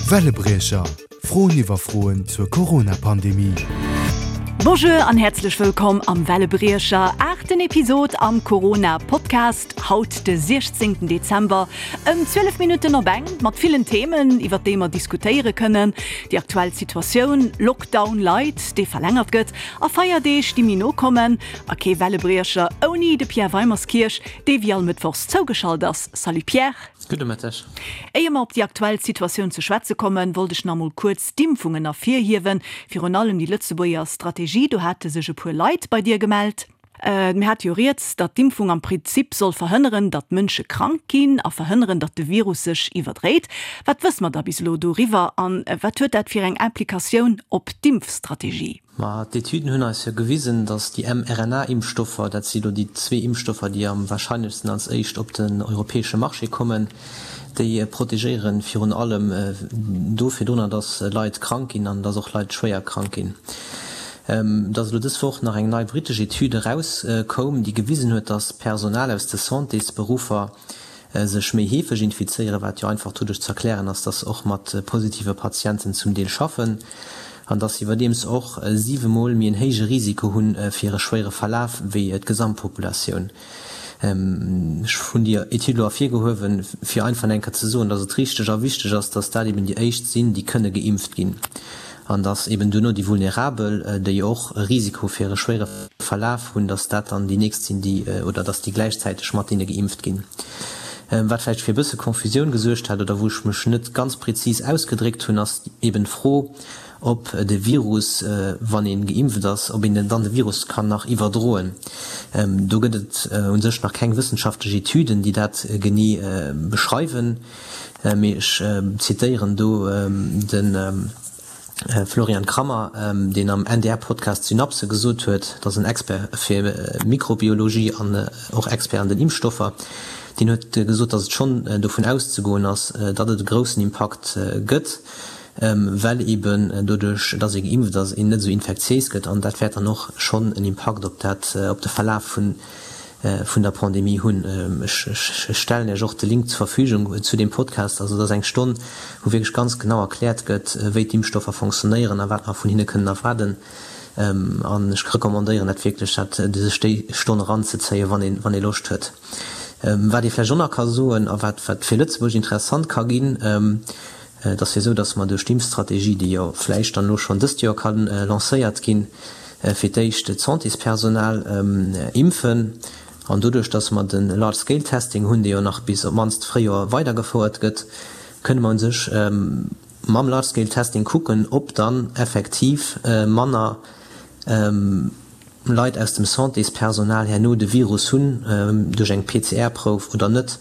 Wellebriecher, Froen iwwer Froen zur Corona-Pandemie. Bonjour an häerzlech wëllkomm am Wellebriecher, aachten Episod am Corona-Podcast. Haut de 16 Dezember ëm 12 Minutten op eng, mat villen Themen, iwwer déi mer diskutéiere kënnen, Déi aktuell Situatioun, Lockdown light, dee verlängert gëtt, a Feierdeeg, déi méi no kommen. A kee Wellebriecher ouni de Pierre Weimerskirch, dee wéi all Mëttwochs zougeschalt ass. Salut Pierre. Gudde Mëtteg. Éier mer op déi aktuell Situatioun ze schwätze kommen, wollt ech nach emol kuerz d'Impfungen ervirhiewen, virun allem déi Lëtzebuerger Strategie. Do hate sech e puer Leit bei dir gemellt. Mir hate jo rieds, datt d'Impfung am Prinzip soll verhënneren, datt Mënsche krank ginn a verhënneren, datt de Virus sech iwwerdréit. Wat wësse mer da bis elo doriwwer a wat huet dat fir eng Implikatioun op d'Impfstrategie? Ma d'Etüden hunn eis jo gewisen, datt déi mRNA-Impfstoffer, dat si lo déi zwee Impfstoffer, déi am warscheinlechsten als éischt op den europäesche Marché kommen, déi protegéiere virun allem do virdrunner, datt Leit krank ginn an datt och Leit schwéier krank ginn. Et ass elo dës Woch nach eng nei brittesch Etüd erauskoum, déi gewisen huet, datt Personal aus de Santésberuffer sech méi heefeg infizéieren, wat jo einfach doduerch ze erklären ass, dass se och mat positive Patienten zum Deel schaffen an dass se iwwerdeems och siwemol méi en héije Risiko hu fir e schwéiere Verlaf wéi d'Gesamtpopulatioun. Ech hunn déi Etüd elo ervirgehuewen, fir einfach eng Kéier ze soen, dass et richteg a wichteg ass, dass dat eben déi éischt sinn, déi kënne geimpft ginn an dass eben duerno déi Vulnerabel, déi och e Risiko fir e schwéiere Verlaf hunn, dass dat dann déi nächst sinn, déi, oder dass déi gläichzäiteg mat deene geimpft ginn. Wat vläicht fir e bësse Confusioun gesuergt hat oder wou ech mech net ganz prezis ausgedréckt hunn, ass eben d'Fro, ob de Virus, wann ee geimpft ass, ob een dann de Virus kann nach iwwerdroen. Do gëtt et u sech nach keng wëssenschaftlech Etüden, déi dat genee beschreiwen, mee ech zitéieren do de Florian Krammer, deen am NDR-Podcast Synapse gesot huet, dat ass en Expert fir Mikrobiologie an och Expert an den Impfstoffer, deen huet gesot, datt et schonn dovun auszegoen ass, datt et e groussen Impakt gëtt, well eben doduerch, datt ee geimpft ass, een net esou infektiéis gëtt an dat wäert dann och schonn en Impakt op dat, op de Verlaf vun vun der Pandemie hunn. Ech stellen Iech och de Link zur Verfügung zu deem Podcast. Also dat ass eng Stonn, wou wierklech ganz genau erkläert gëtt, wéi d'Impfstoffer fonctionnéieren a wat mer vun hinne kënnen erwaarden. An ech recommandéieren dat wierklech, dat sech déi Stonn eranzezéien, wann ee wann ee Loscht huet. Wat ee vläicht och nach ka soen a wat wat fir Lëtzebuerg interessant ka ginn, Et ass jo esou, datt mer duerch d'Impfstrategie, déi jo vläicht dann elo schonn dëst Joer ka lancéiert ginn, fir d'éischt d'Santéspersonal impfen. An doduerch, datt mer de Large-Scale-Testing hunn, dee jo nach bis op d'mannst d'Fréijoer weidergefouert gëtt, kënne mer u sech mam Large-Scale-Testing kucken, ob dann effektiv manner Leit aus dem Santéspersonal herno de Virus hunn duerch eng PCR-Prouf oder net.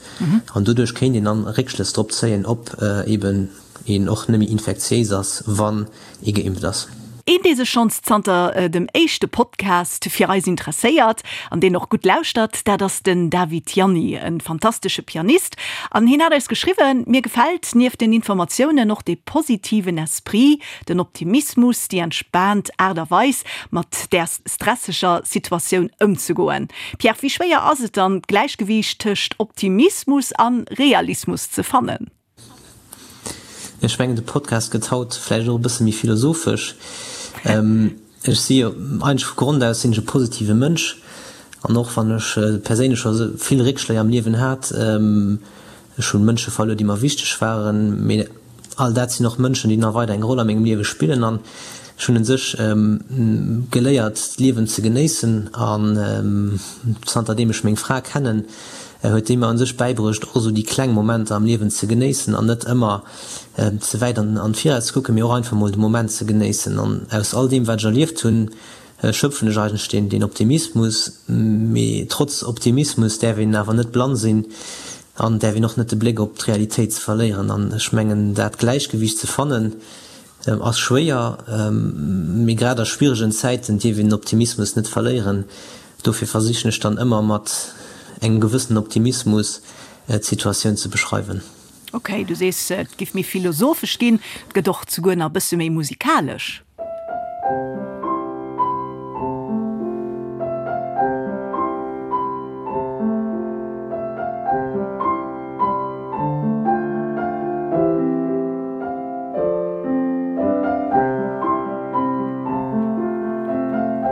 An doduerch kéint een dann Réckschlëss drop zéien, ob eben een och net méi infektiéis ass, wann ee geimpft ass. Een, dee sech schonns zanter dem éischte Podcast fir eis interesséiert an deen och gutt lauschtert, dat ass den David Ianni, e fantastesche Pianist. An hien hat eis geschriwwen, Mir gefält nieft den Informatiounen och dee positiven Esprit, Den Optimismus, déi entspaant Aart a Weis, mat där stresseger Situatioun ëmzegoen. Pierre, wéi schwéier ass et dann, d'Gläichgewiicht tëscht Optimismus a Realismus ze fannen? Ech mengen, de Podcast gëtt haut vläicht och e bësse méi philosophesch. Ech si jo eigentlech vu Grond aus sinn ech e positive Mënsch an och wann ech perséinlech scho vill Réckschléi am Liewen hat, Ech hunn Mënsche verluer, déi mer wichteg waren, mee all dat sinn och Mënschen, déi nach weider eng Roll a mengem Liewe spillen an ech hunn un sech geléiert, d'Liewen ze genéissen an zanter deem ech meng Fra kennen, huet déi mer un sech bäibruecht, och esou déi kleng Momenter am Liewen ze genéissen an net ëmmer ze wäit an d'Viraus ze kucken, mee och einfach mol de Moment ze genéissen an aus all deem, wat ech erlieft hunn, schöpfen ech eigentlech deen deen Optimismus. Mee trotz Optimismus däerf een awer net blann sinn an däerf een och net de Bléck op d'Realitéit ze verléieren. An ech mengen dat Gläichgewiicht ze fannen ass schwéier, mee grad a schwieregen Zäiten dierf een den Optimismus net verléieren. Dofir versichen ech dann ëmmer mat engem gewëssenen Optimismus d'Situatioun ze beschreiwen. Ok, du sees et giff méi philosophesch ginn, et gëtt och zuguer nach e bësse méi musikalesch.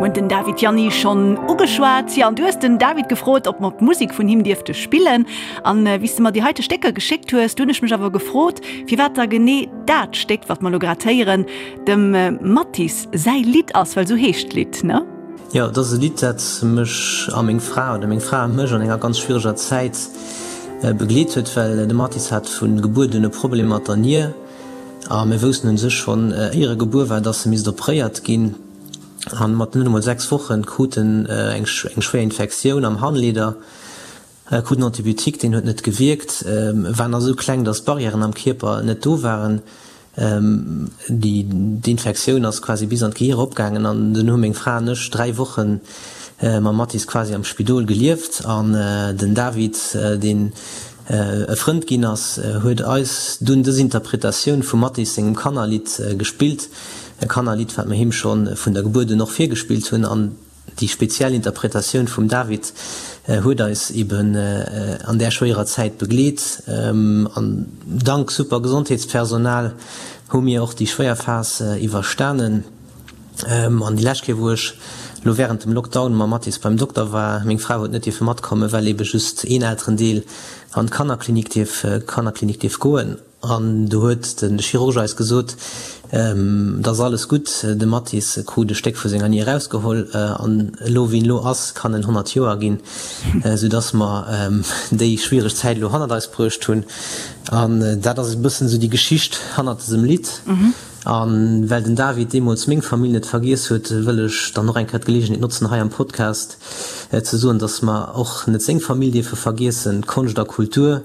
Mir hunn den David Gianni schonn ugeschwat. Jo, an du hues den David gefrot, ob mer d'Musek vun him dierfte spillen. An wéi s de mer déi heite Stécker geschéckt hues, du hunn ech mech awer gefrot, firwat da genee dat Stéck, wat mer elo grad héieren, dem Mattis säi Lidd ass, well esou heescht d'Lidd, ne? Jo, et ass e Lidd, dat mech a meng Fra, oder meng Fra a mech an enger ganz schwiereger Zäit begleet huet, well de Mattis hat vu Gebuert un e Problem mat der Nier a mir woussten un sech schonn éier e gebuer war, dass e misst opréiert ginn. An mat net emol 6 Wochen krut en eng schwéier Infektioun am Harnleeder, krut en Antibiotique, deen huet net gewierkt, war nach esou kleng, dass d'Barrièren am Kierper net do waren. Déi Infektioun ass quasi bis an d'Gehir eropgaangen an dunn hu meng Fra an ech 3 Woche mam Mathis quasi am Spidol gelieft an den David, deen e Frënd ginn ass, huet eis dunn dës Interpretatioun vum Mathis sengem Kannerlidd gespillt, e Kannerlidd, wat mer him scho vun der Gebuert un och virgespillt hunn. An déi speziell Interpretatioun vum David huet eis eben an där schwéierer Zäit begleet. An dank super Gesondheetspersonal hu mir och déi schwéier Phas iwwerstanen. An déi lescht Kéier, wou ech elo wärend dem Lockdown mam Mathis beim Dokter war, meng Fra huet net dierfe matkommen, well ebe just een Elterendeel an d'Kannerklinik dierf, Kannerklinik dierf goen. An do huet de Chirurg eis gesot, Et ass alles gutt, de Mathis krut e Stéck vu senger Nier erausgeholl an elo wéi en elo ass, kann en 100 Joer ginn, soudass mer déi schwiereg Zäit elo hannert eis bruecht hunn. An dat ass e bëssen esou déi Geschicht hannert dësem Lidd. A well den David deemools meng Famill net vergiess huet, wëll ech dann och eng Kéier d'Geleegenheet notzen, hei am Podcast ze soen, dass mer och net seng Famill dierfe vergiessen. Konscht a Kultur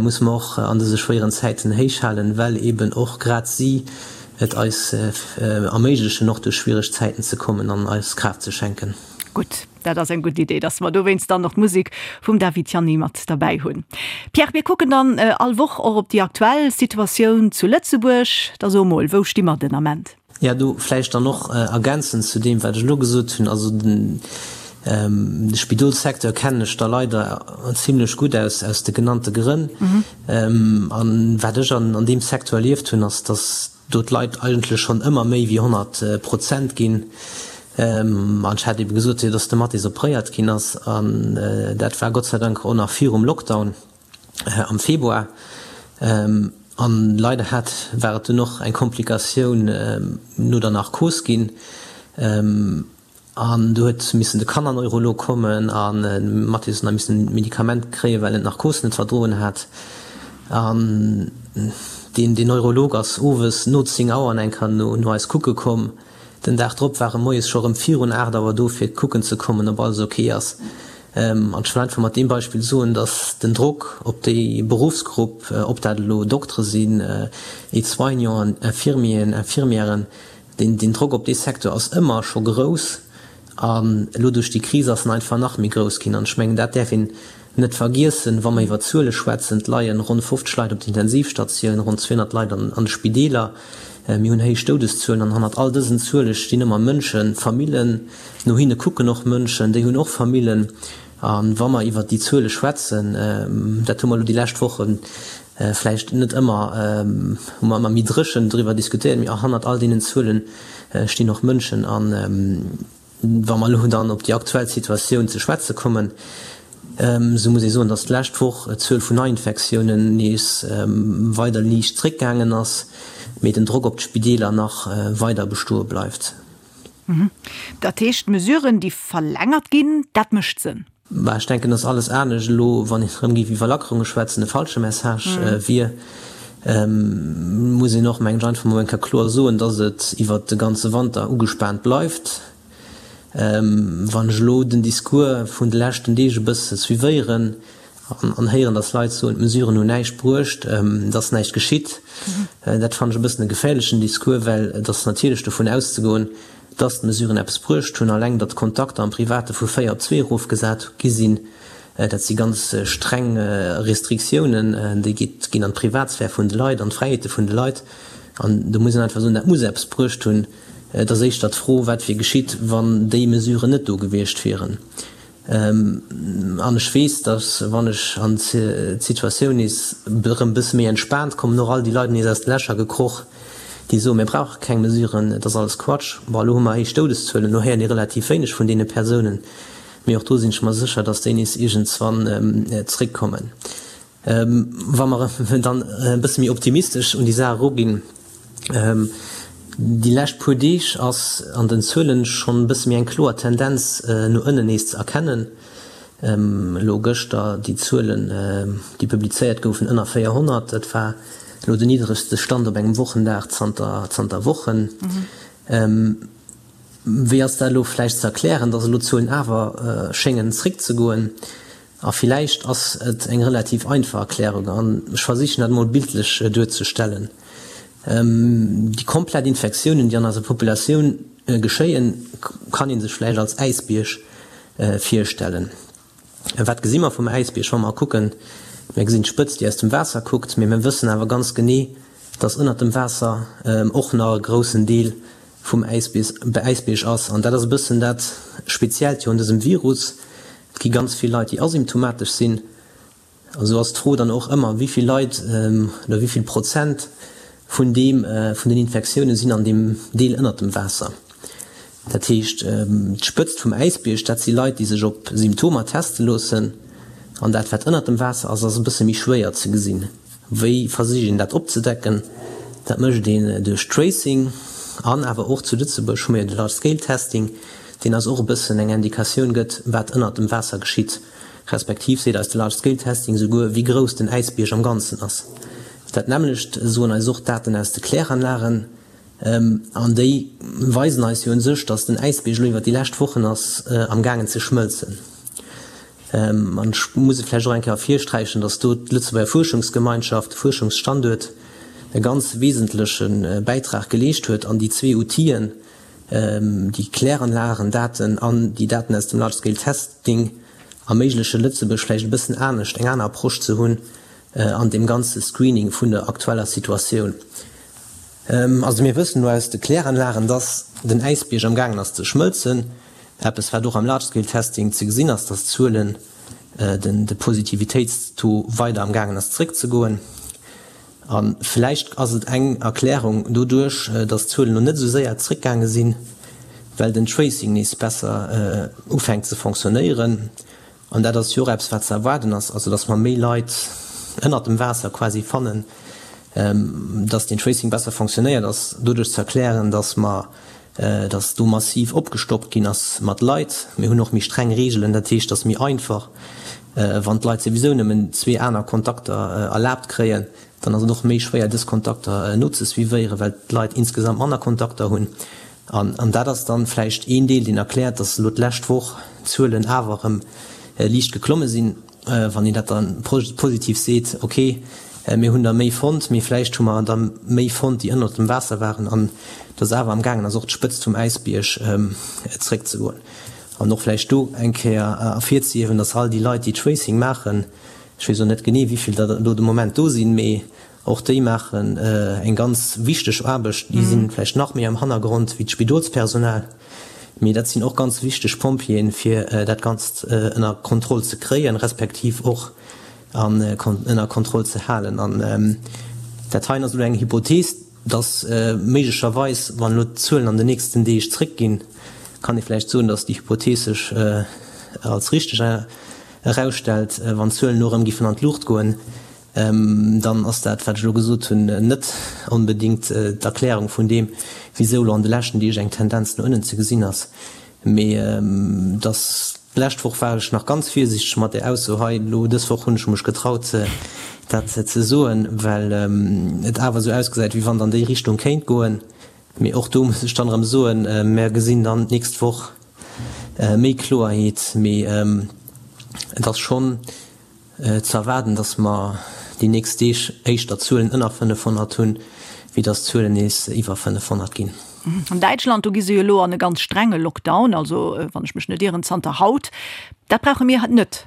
musse mer och an dëse schwéieren Zäiten héich halen, well eben och grad si et eis erméiglechen, och duerch schwiereg Zäiten ze kommen an eis Kraaft ze schenken. Gutt. Dat ass eng gutt Idee, dass mer dowéinst dann och d'Musek vum David Gianni mat derbäi hunn. Pierre, mir kucken dann all Woch och op déi aktuell Situatioun zu Lëtzebuerg. Da so mol, wou sti mer den Ament? Jo, do vläicht dann och ergänzend zu deem, wat ech elo gesot hunn. Also de Spidolssecteur kennen ech da leider zimlech gutt aus, aus de genannte Grënn. An wat ech an deem Secteur erlieft hunn, ass, dass do d'Leit eigentlech schonn ëmmer méi wéi 100 Prozent ginn. An ech hat ebe gesot, dass de Mathis opréiert ginn ass, an dat war Gott sei Dank och nach virum Lockdown am Februar. An leider hat, war et dunn och eng Komplikatioun no der Narkos ginn. An do huet missen de Kannerneurolog kommen an de Mathis huet nach missen Medikament kréien, well en d'Narkos net verdroen hat. An deen deen Neurolog ass owes no 10 Auer an eng Kéier no no eis kucke komm. Den Dag drop war e moies scho rëm virun 8 Auer do fir kucken ze kommen, ob alles ok ass. An ech wëll einfach mat deem Beispill soen, dass den Drock op déi Beruffsgrupp, ob dat elo Doktere sinn, Aide-soignanten, Infirmieren, Infirmièren, Den Drock op dee Secteur ass ëmmer scho grouss an elo duerch déi Kris ass en einfach nach méi grouss ginn. An ech mengen, dat däerf een net vergiessen, wa mer iwwer Zuele schwätzen. Et leien ronn 50 Leit op der Intensivstatioun, ronn 200 Leit an de Spideeler. Mir hunn héich Doudeszuelen an hannert all dësen Zuele stinn ëmmer Mënschen, Famillen. No hinne kucken och Mënschen, déi hunn och Famillen. A wa mer iwwert déi Zuele schwätzen, dat hu mer elo déi lescht Wochen vläicht net ëmmer, hu mer ëmmer méi dréchen driwwer diskutéiert, mee hannert all deenen Zuele stinn och Mënschen. A wa mer elo dann op déi aktuell Situatioun ze schwätze kommen, esou muss ee soen, datt d'lescht Woch d'Zuel vun Neiinfektiounen nees weider liicht zréckgaangen ass, mee den Drock op d'Spideeler nach weider bestoe bleift. Dat heescht, d'Mesuren, déi verlängert ginn, dat mécht Sënn? Bah, ech denken, dass alles anescht elo, wann een erëm géif iwwer Lackerunge schwätzen, e falsche Message wier. Muss een och, mengen ech, einfach mol eng Kéier kloer soen, dass et iwwert de ganze Wanter ugespaant bleift. Wann ech elo den Discours vun de leschten Deeg e bësse suivéieren an héieren, dass Leit soen, d'Mesuren hunn näischt bruecht, et ass näischt geschitt, dat fannen ech e bëssen e geféierlechen Discours, well et ass natierlech dovun auszegoen, dass d'Mesuren eppes bruecht hunn. Alleng, datt d'Kontakter am Private vu 4 op 2 erofgesat gi sinn, dat si ganz streng Restriktiounen, déi ginn an d'Privatsphär vun de Leit, an d'Fräiheete vun de Leit. An do muss een einfach soen, dat muss eppes bruecht hunn. Et ass éischter d'Fro, wat wier geschitt, wann déi Mesuren net do gewiescht wieren. An ech weess, datt wann ech an d'Situatioun nees erëm e bësse méi entspaant kommen, och all déi Leit nees aus de Lächer gekroch. déi soen, mir brauche keng Mesuren, et ass alles Quatsch. Bon, elo hu mer héich Doudeszuelen, elo héiert ee relativ wéineg vun deene Persounen, mee och do sinn ech mer sécher, datt déi nees iergendswann zréckkommen. Wa mer dann e bësse méi optimistesch un déi Saach eruginn, Déi lescht puer Deeg ass an den Zuelen schonn e bësse méi eng kloer Tendenz no ënnen nees ze erkennen. Elo gëschter déi Zuelen, déi publizéiert goufen, ënner 400, dat war elo den niddregste Stand op engem Wochendag zanter zanter Wochen. Wéi ass dat elo vläicht ze erklären, datt elo d'Zuelen awer schéngen zréckzegoen? A villäicht ass et eng relativ einfach Erklärung, an ech versichen dat emol bildlech duerzestellen. Déi komplett Infektiounen, déi an eiser Populatioun geschéien, kann ee sech vläicht als Äisbierg virstellen. Wat gesi mer vum Äisbierg, wa mer kucken? Mir gesinn d'Spëtz, déi aus dem Waasser kuckt, mee mir wëssen awer ganz genee, dass ënnert dem Waasser och nach e groussen Deel vum Äisbierg ass. An dat ass e bëssen dat Speziellt jo un dësem Virus, Et gi ganz vill Leit, déi asymptomatesch sinn. A sou ass d'Fro dann och ëmmer, wéi vill Leit oder wéi vill Prozent vun deem, vun den Infektioune sinn an deem Deel ënnert dem Waasser. Dat heescht, d'Spëtzt vum Äisbierg, dat si Leit, déi sech op Symptomer teste loossen. An dat, wat ënnert dem Waasser ass, ass e bësse méi schwéier ze gesinn. Wéi versicht een dat opzedecken? Dat mécht een duerch Tracing an awer och zu Lëtzebuerg hu mir jo de Large Scale Testing, deen eis och e bëssen eng Indikatioun gëtt, wat ënnert dem Waasser geschitt, respektiv seet eis de Large Scale Testing souguer, wéi grouss den Äisbierg am Ganzen ass. Dat nämmlecht soen eis och d'Daten aus de Kläranlagen an déi weisen eis jo un sech, datt den Äisbierg elo iwwer déi lescht Wochen ass am gaangen ze schmëlzen. An ech muss et vläicht och eng Kéier ervirsträichen, dass do d'Lëtzebuerger Fuerschungsgemeinschaft, de Fuerschungsstanduert, e ganz wesentleche Bäitrag geleescht huet an déi zwee Outiller, déi Kläranlagendaten an déi Daten aus dem Large Scale Testing, erméigleche Lëtzebuerg vläicht e bëssen anescht, eng aner Approche ze hunn an deem ganze Screening vun der aktueller Situatioun. Also mir wëssen elo aus de Kläranlagen, dass den Äisbierg am gaangen ass ze schmëlzen. Eppes wat och am Large Scale Testing ze gesinn ass, dass d'Zuelen, den de Positivitéitstaux weider am gaangen ass zeréckzegoen. A vläicht ass et eng Erklärung doduerch, dass d'Zuelen elo net esou séier zeréckgaange sinn, well den Tracing nees besser ufänkt ze fonctionnéieren. An dat ass jo och eppes, wat ze erwaarden ass, also dass mer méi Leit ënnert dem Waasser quasi fannen, dass den Tracing besser fonctionnéiert, ass doduerch ze erklären, dass mer, dass do massiv opgestockt ginn ass mat Leit. Mir hunn och méi streng Reegelen, dat heescht, et ass méi einfach, wann d'Leit souwisou nëmmen zwee aner Kontakter erlaabt kréien, dann ass et och méi schwéier, dës Kontakter nozesuivéieren, well d'Leit insgesamt manner Kontakter hunn. An dat ass dann vläicht een Deel, deen erkläert, dass elo d'lescht Woch d'Zuelen awer erëm liicht geklomme sinn. Wann een dat da positiv seet, okay, mir hunn der méi fonnt, mee vläicht hu mer der méi fonnt, déi ënnert dem Waasser waren, an dass awer am gaangen ass, och d'Spëtzt vum Äisbierg zeréckzegoen. An och vläicht do eng Kéier ervirzehiewen, dass all déi Leit, déi Tracing maachen, ech weess elo net genee, wéi vill der elo de Moment do sinn, mee Och déi maachen eng ganz wichteg Aarbecht. Déi si vläicht nach méi am Hannergrond wéi d'Spidolspersonal, mee dat sinn och ganz wichteg Pompjeeën, fir dat Ganzt ënner Kontroll ze kréien, respektiv och ënner Kontroll ze halen. An dat heien ass elo eng Hypothees, dass méiglecherweis, wann elo d'Zuelen an den nächsten Deeg zréckginn, kann ee vläicht soen, dass déi Hypothees sech als richteg erausstellt, wann d'Zuelen elo erëm giffen an d'Luucht goen. Dann ass dat, wat ech elo gesot hunn, net onbedéngt d'Erklärung vun deem, wisou elo an de leschten Deeg eng Tendenz no ënnen ze gesinn ass. Mee dass, d'lescht Woch war ech nach ganz virsiichteg mat där Ausso hei, elo dës Woch hunn ech mech getraut, dat ze soen, well et awer esou ausgesäit, wéi wann et an déi Richtung kéint goen. Mee och do muss ech dann erëm soen, mer gesinn dann d'nächst Woch méi Kloerheet. Mee et ass schonn Ze erwaarden, datt mer déi nächst Deeg éischter Zuelen ënner 500 hunn, wéi datt d'Zuelen nees iwwer 500 ginn. An Däitschland, do gi se jo elo an e ganz strenge Lockdown, also wann ech mech net ieren, zanter haut. Dat brauche mir net.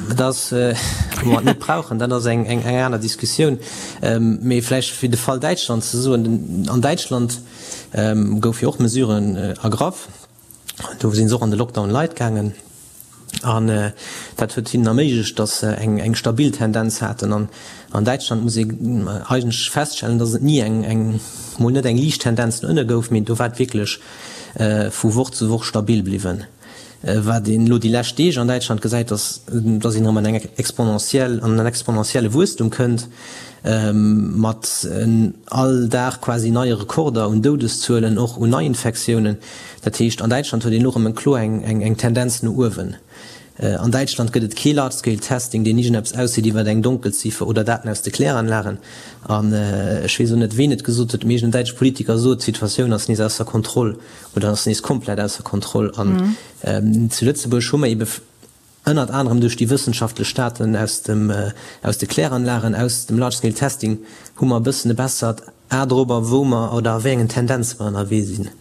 Dat ass, ob mer et net brauchen, dat ass eng aner Diskussioun. Mee vläicht fir de Fall Däitschland ze soen, An Däitschland goufe jo och Mesuren ergraff. Do si se och an de Lockdown light gaangen. An dat huet hinnen erméiglecht, datt se eng stabil Tendenz haten. An an Däitschland muss ee eigentlech feststellen, datt et ni eng, mol net eng liicht Tendenz no ënne gouf, mee do war et wierklech vu Woch zu Woch stabil bliwwen. Wat een elo déi lescht Deeg an Däitschland gesäit, ass, datt een erëm an eng exponentiell, an en exponentielle Wuesstum kënnt, mat all Dag quasi neie Rekorder un Doudeszuelen, och un Neiinfektiounen. Dat heescht, an Däitschland huet een elo erëm eng kloer eng Tendenz no uewen. An Däitschland gëtt et kee Large-Scale Testing, deen iergendeppes ausseet iwwer eng Donkelziffer oder Daten aus de Kläranlagen. An ech weess och net, ween et gesot huet, mee iergendeen däitsche Politiker sot, d'Situatioun ass nees ausser Kontroll oder ass nees komplett ausser Kontroll. An zu Lëtzebuerg hu mer eebe ënnert anerem duerch déi wëssenschaftlech Daten aus dem, aus de Kläranlagen, aus dem Large-Scale Testing, hu mer e bëssen e bessert A dorobber, wou mer oder a wéi engen Tendenze mer ënnerwee sinn.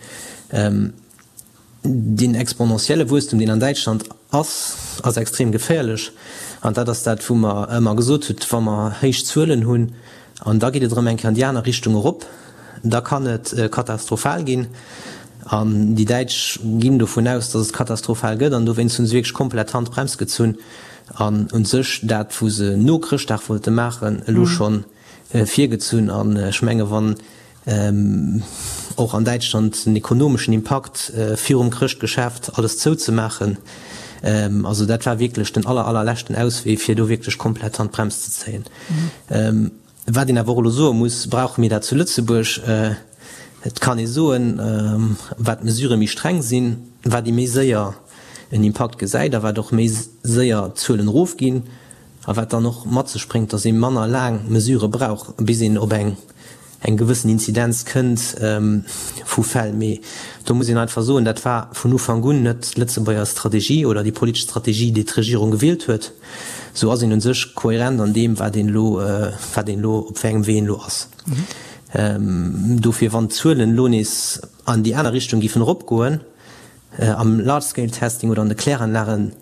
Deen exponentielle Wuesstum, deen an Däitschland ass, ass extrem geféierlech. An dat ass dat, wou mer ëmmer gesot hunn, wa mer héich Zuelen hunn an da geet et erëm eng Kéier an déi aner Richtung erop, da kann et katastrophal ginn. An déi Däitsch ginn dovun aus, datt et katastrophal gëtt an dowéinst hu se wierklech komplett d'Handbrems gezunn an u sech dat, wou se no Chrëschtdag wollte maachen, elo schonn virgezunn. An ech menge wann och an Däitschland den ekonomeschen Impakt virum Chrëschtgeschäft alles zouzemaachen, also dat war wierklech den aller allerleschten Auswee fir do wierklech komplett d'Handbrems ze zéien. Wat een awer och elo soe muss, Brauche mir dat zu Lëtzebuerg? Et kann ee soen, wat d'Mesurë méi streng sinn, wat ee méi séier en Impakt gesäit a wat och méi séier d'Zuelen erofginn a wat dann och mat sech bréngt, datt ee manner laang Mesurë brauch, bis een op eng eng gewëssen Inzidenz kënnt vu Fäll. Mee do muss een einfach soen, dat war vun Ufank un net d'Lëtzebuerger Strategie oder déi politesch Strategie, déi d'Regierung gewielt huet. Sou ass een u sech kohärent an deem, wat een elo, wat een elo, op wéi engem Wee een elo ass. Dofir, wann d'Zuelen elo nees an déi aner Richtung géifen eropgoen, am Large-Scale-Testing oder an de Kläranlagen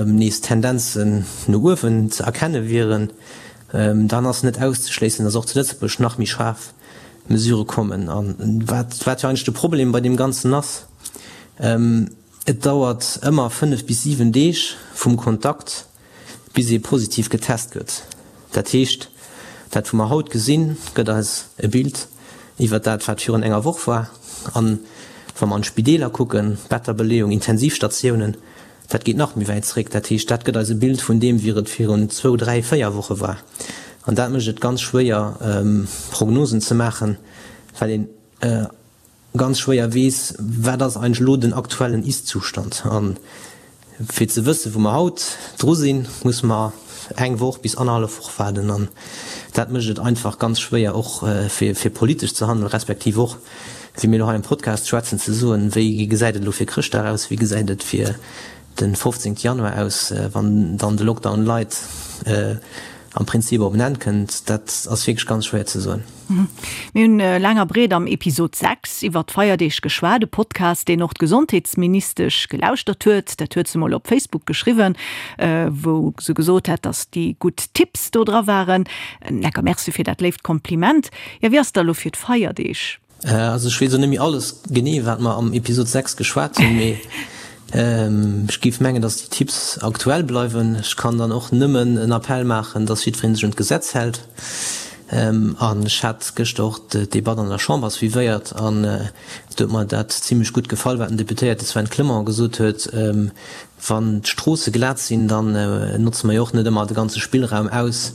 nees Tendenzen no uewen ze erkenne wieren, dann ass net auszeschléissen, datt och zu Lëtzebuerg nach méi schaarf Mesurë kommen. A wat wat jo eigentlech de Problem bei deem Ganzen ass, Et dauert ëmmer 5 bis 7 Deeg vum Kontakt, bis ee positiv getest gëtt. Dat heescht, dat wou mer haut gesinn, gëtt eis e Bild iwwert dat, wat virun enger Woch war. An wa mer an d'Spideeler kucken, Betterbeleeung, Intensivstatiounen, dat geet nach méi wäit zréck. Dat heescht, dat gëtt eis e Bild vun deem, wéi et virun zwou, dräi, véier Woche war. An dat mécht et ganz schwéier, Prognosen ze maachen, well een ganz schwéier weess, wat ass eigentlech elo den aktuellen Ist-Zustand. A fir ze wëssen, wou mer haut dru sinn, musse mer eng Woch bis annerhallef Woch waarden. An dat mécht et einfach ganz schwéier, och fir politesch ze handelen, respektiv och, wéi mir elo hei am Podcast schwätzen, ze soen, wéi gesäit et elo fir Chrëschtdag aus, wéi gesäit et fir de 15 Januar aus, wann dann de Lockdown light am Prinzip op en Enn kënnt. Dat ass wierklech ganz schwéier ze soen. Mir hunn laang a breet am Episod 6 iwwer d'Feierdeeg geschwat, e Podcast, deen och d'Gesondheetsministesch gelauschtert huet. Dat huet se mol op Facebook geschriwwen, wou se gesot hat, datt déi gutt Tipps do dra waren. Lecker Merci fir dat léift Kompliment. Jo, wéi ass et da lo fir d'Feierdeeg? Also ech weess och net méi alles genee, wat mer am Episod 6 geschwat hunn, mee ech géif mengen, datt déi Tipps aktuell bleiwen. Ech kann dann och nëmmen en Appell maachen, datt jiddweree sech un d'Gesetz hält. An ech hat gëschter och d'Debatt an der Chamber suivéiert an do huet mer dat zimlech gutt gefall, wat den Deputéierte Sven Clement gesot huet, Wann d'Stroosse glat sinn, dann notze mer jo och net ëmmer de ganze Spillraum aus,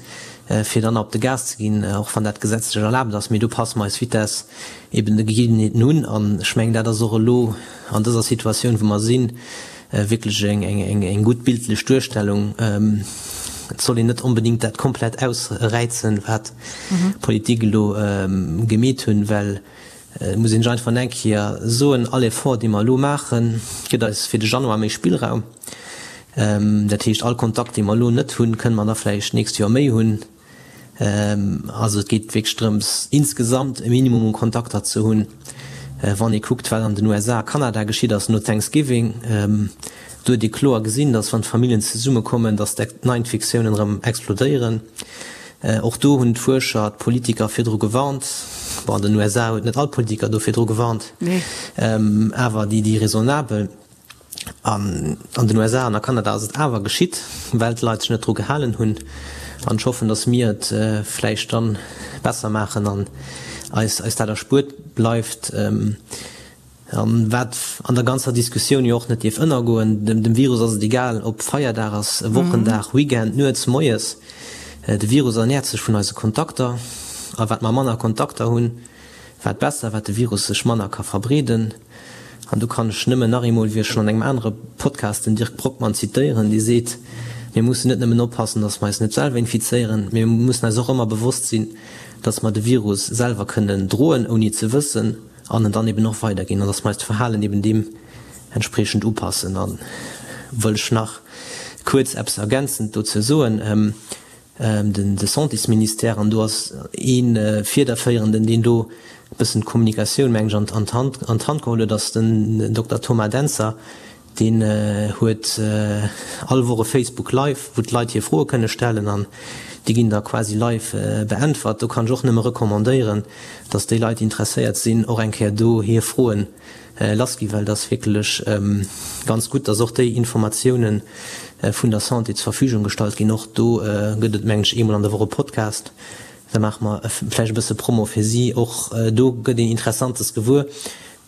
fir dann op de Gas ze ginn, och wann dat gesetzlech erlaabt ass. Mee do passe mer eis Vitess eben de Gegebenheeten un. An ech mengen, dat ass och elo an dëser Situatioun, wou mer sinn, wierklech eng gutt bildlech Duerstellung. Et soll een net onbedéngt dat komplett ausräizen, wat d'Politik elo gemeet hunn, well et muss een sech einfach eng Kéier soen, all Effort, dee mer elo maachen, gëtt eis fir de Januar méi Spillraum. Dat heescht, all Kontakt, dee mer elo net hunn, kënne mer da vläicht d'nächst Joer méi hunn. Also et geet wierklech drëms, insgesamt e Minimum u Kontakter ze hunn. Wann ee kuckt, wat an den USA a Kanada geschitt ass no Thanksgiving, do huet ee kloer gesinn, datt wann d'Familljen zesummekommen, datt d'Neiinfektiounen erëm explodéieren. Och do hunn d'Fuerscher d'Politiker virdru gewarnt. Bon, an den USA huet net all Politiker do virdru gewarnt, awer déi, déi raisonnabel. An an den USA an a Kanada ass et awer geschitt, well d'Leit sech net dru gehalen hunn. An ech hoffen, datt mir et vläicht dann besser maachen an eis eis dat erspuert bleift. An wat an der ganzer Diskussioun jo och net dierf ënnergoen, dem Virus ass et egal, ob Feierdag ass, Wochendag, Weekend, nuets, moies. De Virus ernäert sech vun eise Kontakter. A wat mer manner Kontakter hunn, wat besser, wat de Virus sech manner ka verbreeden. An do kann ech nëmmen nach eemol, wéi ech schonn an engem anere Podcast den Dirk Brockmann zitéieren, dee seet, Mir mussen net nëmmen oppassen, datt mer eis net selwer infizéieren, mee mir mussen eis och ëmmer bewosst sinn, datt mer de Virus selwer kënnen droen, ouni et ze wëssen, an en dann eben och weiderginn, an datt mer eist Verhalen eben deem entspriechend upassen. A wëll ech nach kuerz eppes ergänzend dozou soen. Den de Santésministère, an do ass ee Fiederféierenden, deen do e bëssen d'Kommunikatioun, meng ech, an d'Hand an d'Hand geholl huet, ass den Dokter Thomas Dentzer. Deen huet all Woch e Facebook Live, wou d'Leit hir Froe kënne stellen an déi ginn da quasi live beäntwert. Do kann ech och nëmme recommandéieren, datt déi Leit, déi interesséiert sinn, och eng Kéier do hir Froen lass ginn, well et ass wierklech ganz gutt, dass och déi Informatiounen vun der Santé zur Verfügung gestallt ginn. Och do gëtt et, mengen ech, eemol an der Woch e Podcast. Da maache mer vläicht e bësse Promo fir si. Och do gëtt een Interessantes gewuer.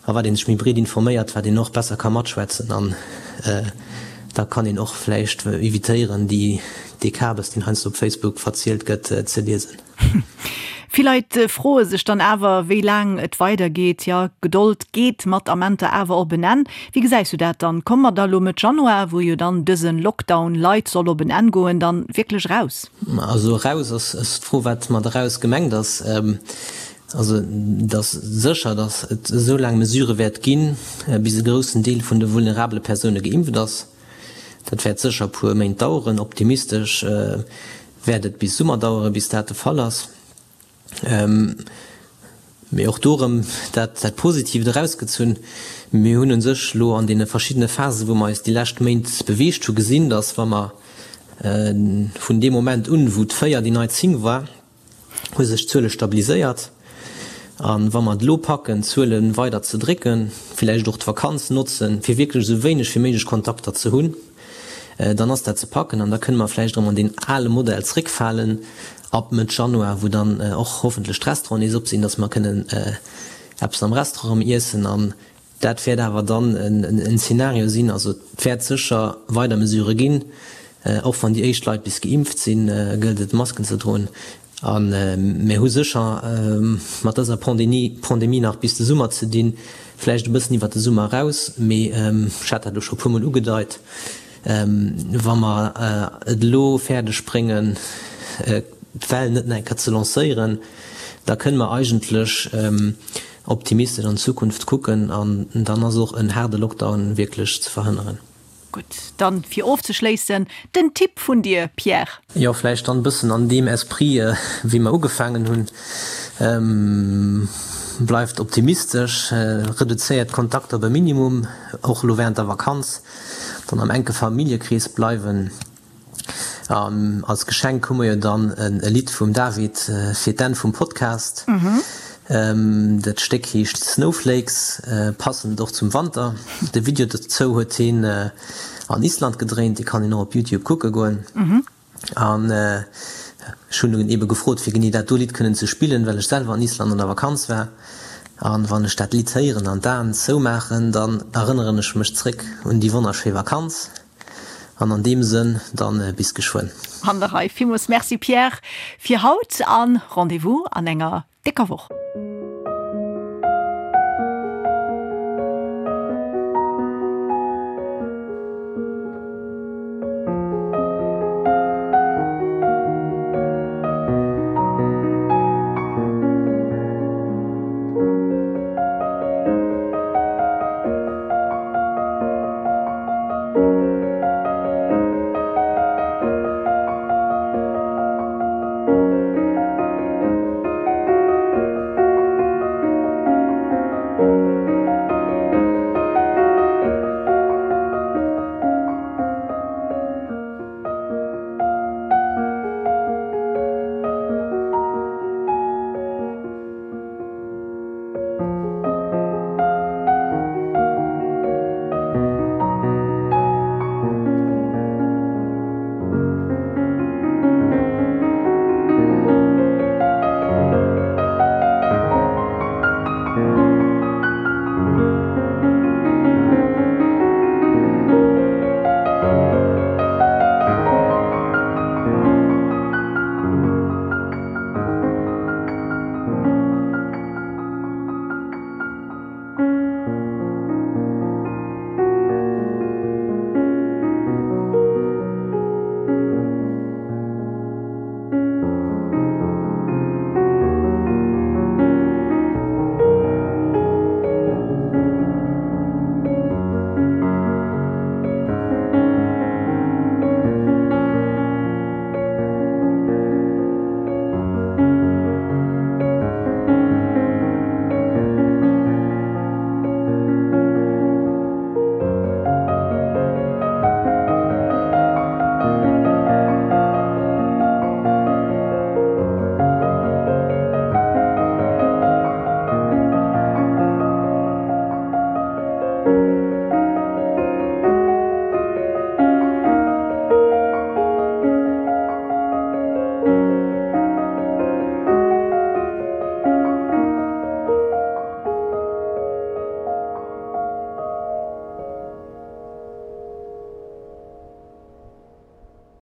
A wat ee sech méi breet informéiert, wat een och besser ka matschwätzen. An da kann een och vläicht evitéieren, déi, dee Kabes, deen heiansdo op Facebook verzielt gëtt, ze liesen. Vill Leit froe sech dann awer, wéi laang et weidergeet. Jo, Gedold geet mat Amenter awer op en Enn. Wéi gesäis du dat dann? Komme mer da lo Mëtt Januar, wou jo dann dëse Lockdown light soll op en Enn goen, dann wierklech eraus? Also eraus ass d'Fro, wat mat eraus gemengt ass. Also et ass sécher, datt et esou laang Mesure wäert ginn, bis e groussen Deel vun de vulnerabele Persoune geimpft ass. Dat wäert sécher e puer Méint daueren. Optimistesch wäert et bis Summer daueren, bis dat de Fall ass. Mee och do erëm dat dat Positiivt erausgezunn, Mir hunn u sech elo an deene verschiddene Phasen, wou mer eis déi lescht Méint beweegt hu gesinn, datt wa mer vun deem Moment un, wou d'Véier déi nei 10 war, hu sech d'Zuele stabiliséiert. A wa mer et elo packen, d'Zuele weider ze drécken, villäicht och d'Vakanz notzen, fir wierklech esou wéineg wéi méiglech Kontakter ze hunn, dann ass dat ze packen an da kënne mer vläicht erëm an deen ale Modell zréckfalen ab Mëtt Januar, wou dann och hoffentlech d'Restauranten nees op sinn, dass mer kënnen eppes am Restaurant erëm iessen. An dat wäert awer dann en Zeenario sinn. Also et wäert sécher weider Mesurë ginn. Och wann déi éischt Leit bis geimpft sinn, gëllt et Masken ze droen. A mir hu sécher mat dëser Pandemie nach bis de Summer ze dinn, vläicht e bëssen iwwert de Summer eraus, mee ech hat dat elo scho e puermol ugedeit, wa mer et elo fäerdeg bréngen, d'Well net nach eng Kéier ze lancéieren, da kënne mer eigentlech optimistesch an d'Zukunft kucken an dann ass och en haarde Lockdown wierklech ze verhënneren. Gutt, dann fir ofzeschléissen den Tipp vun dir, Pierre. Jo, vläicht dann e bëssen an deem Esprit, wéi mer ugefaangen hunn. Bleift optimistesch, reduzéiert d'Kontakter op e Minimum, och elo während der Vakanz, dann am enke Familljekrees bleiwen. An als Geschenk hu mer jo dann e Lidd vum David fir d'Enn vum Podcast. Dat Stéck heescht Snowflakes, passend och zum Wanter. De Video dozou huet hien an Island gedréint, dee kann een och op Youtube kucke goen. An ech hunn en ebe gefrot, fir genee dat do Lidd kënnen ze spillen, well ech selwer an Island an der Vakanz war. An wann ech dat Lidd héieren an d'Aen zoumaachen, dann erënneren ech mech zréck un déi wonnerschéi Vakanz. An an deem Sënn dann bis geschwënn. An der Rei. Villmools Merci Pierre fir haut an Rendez-vous an enger décker Woch.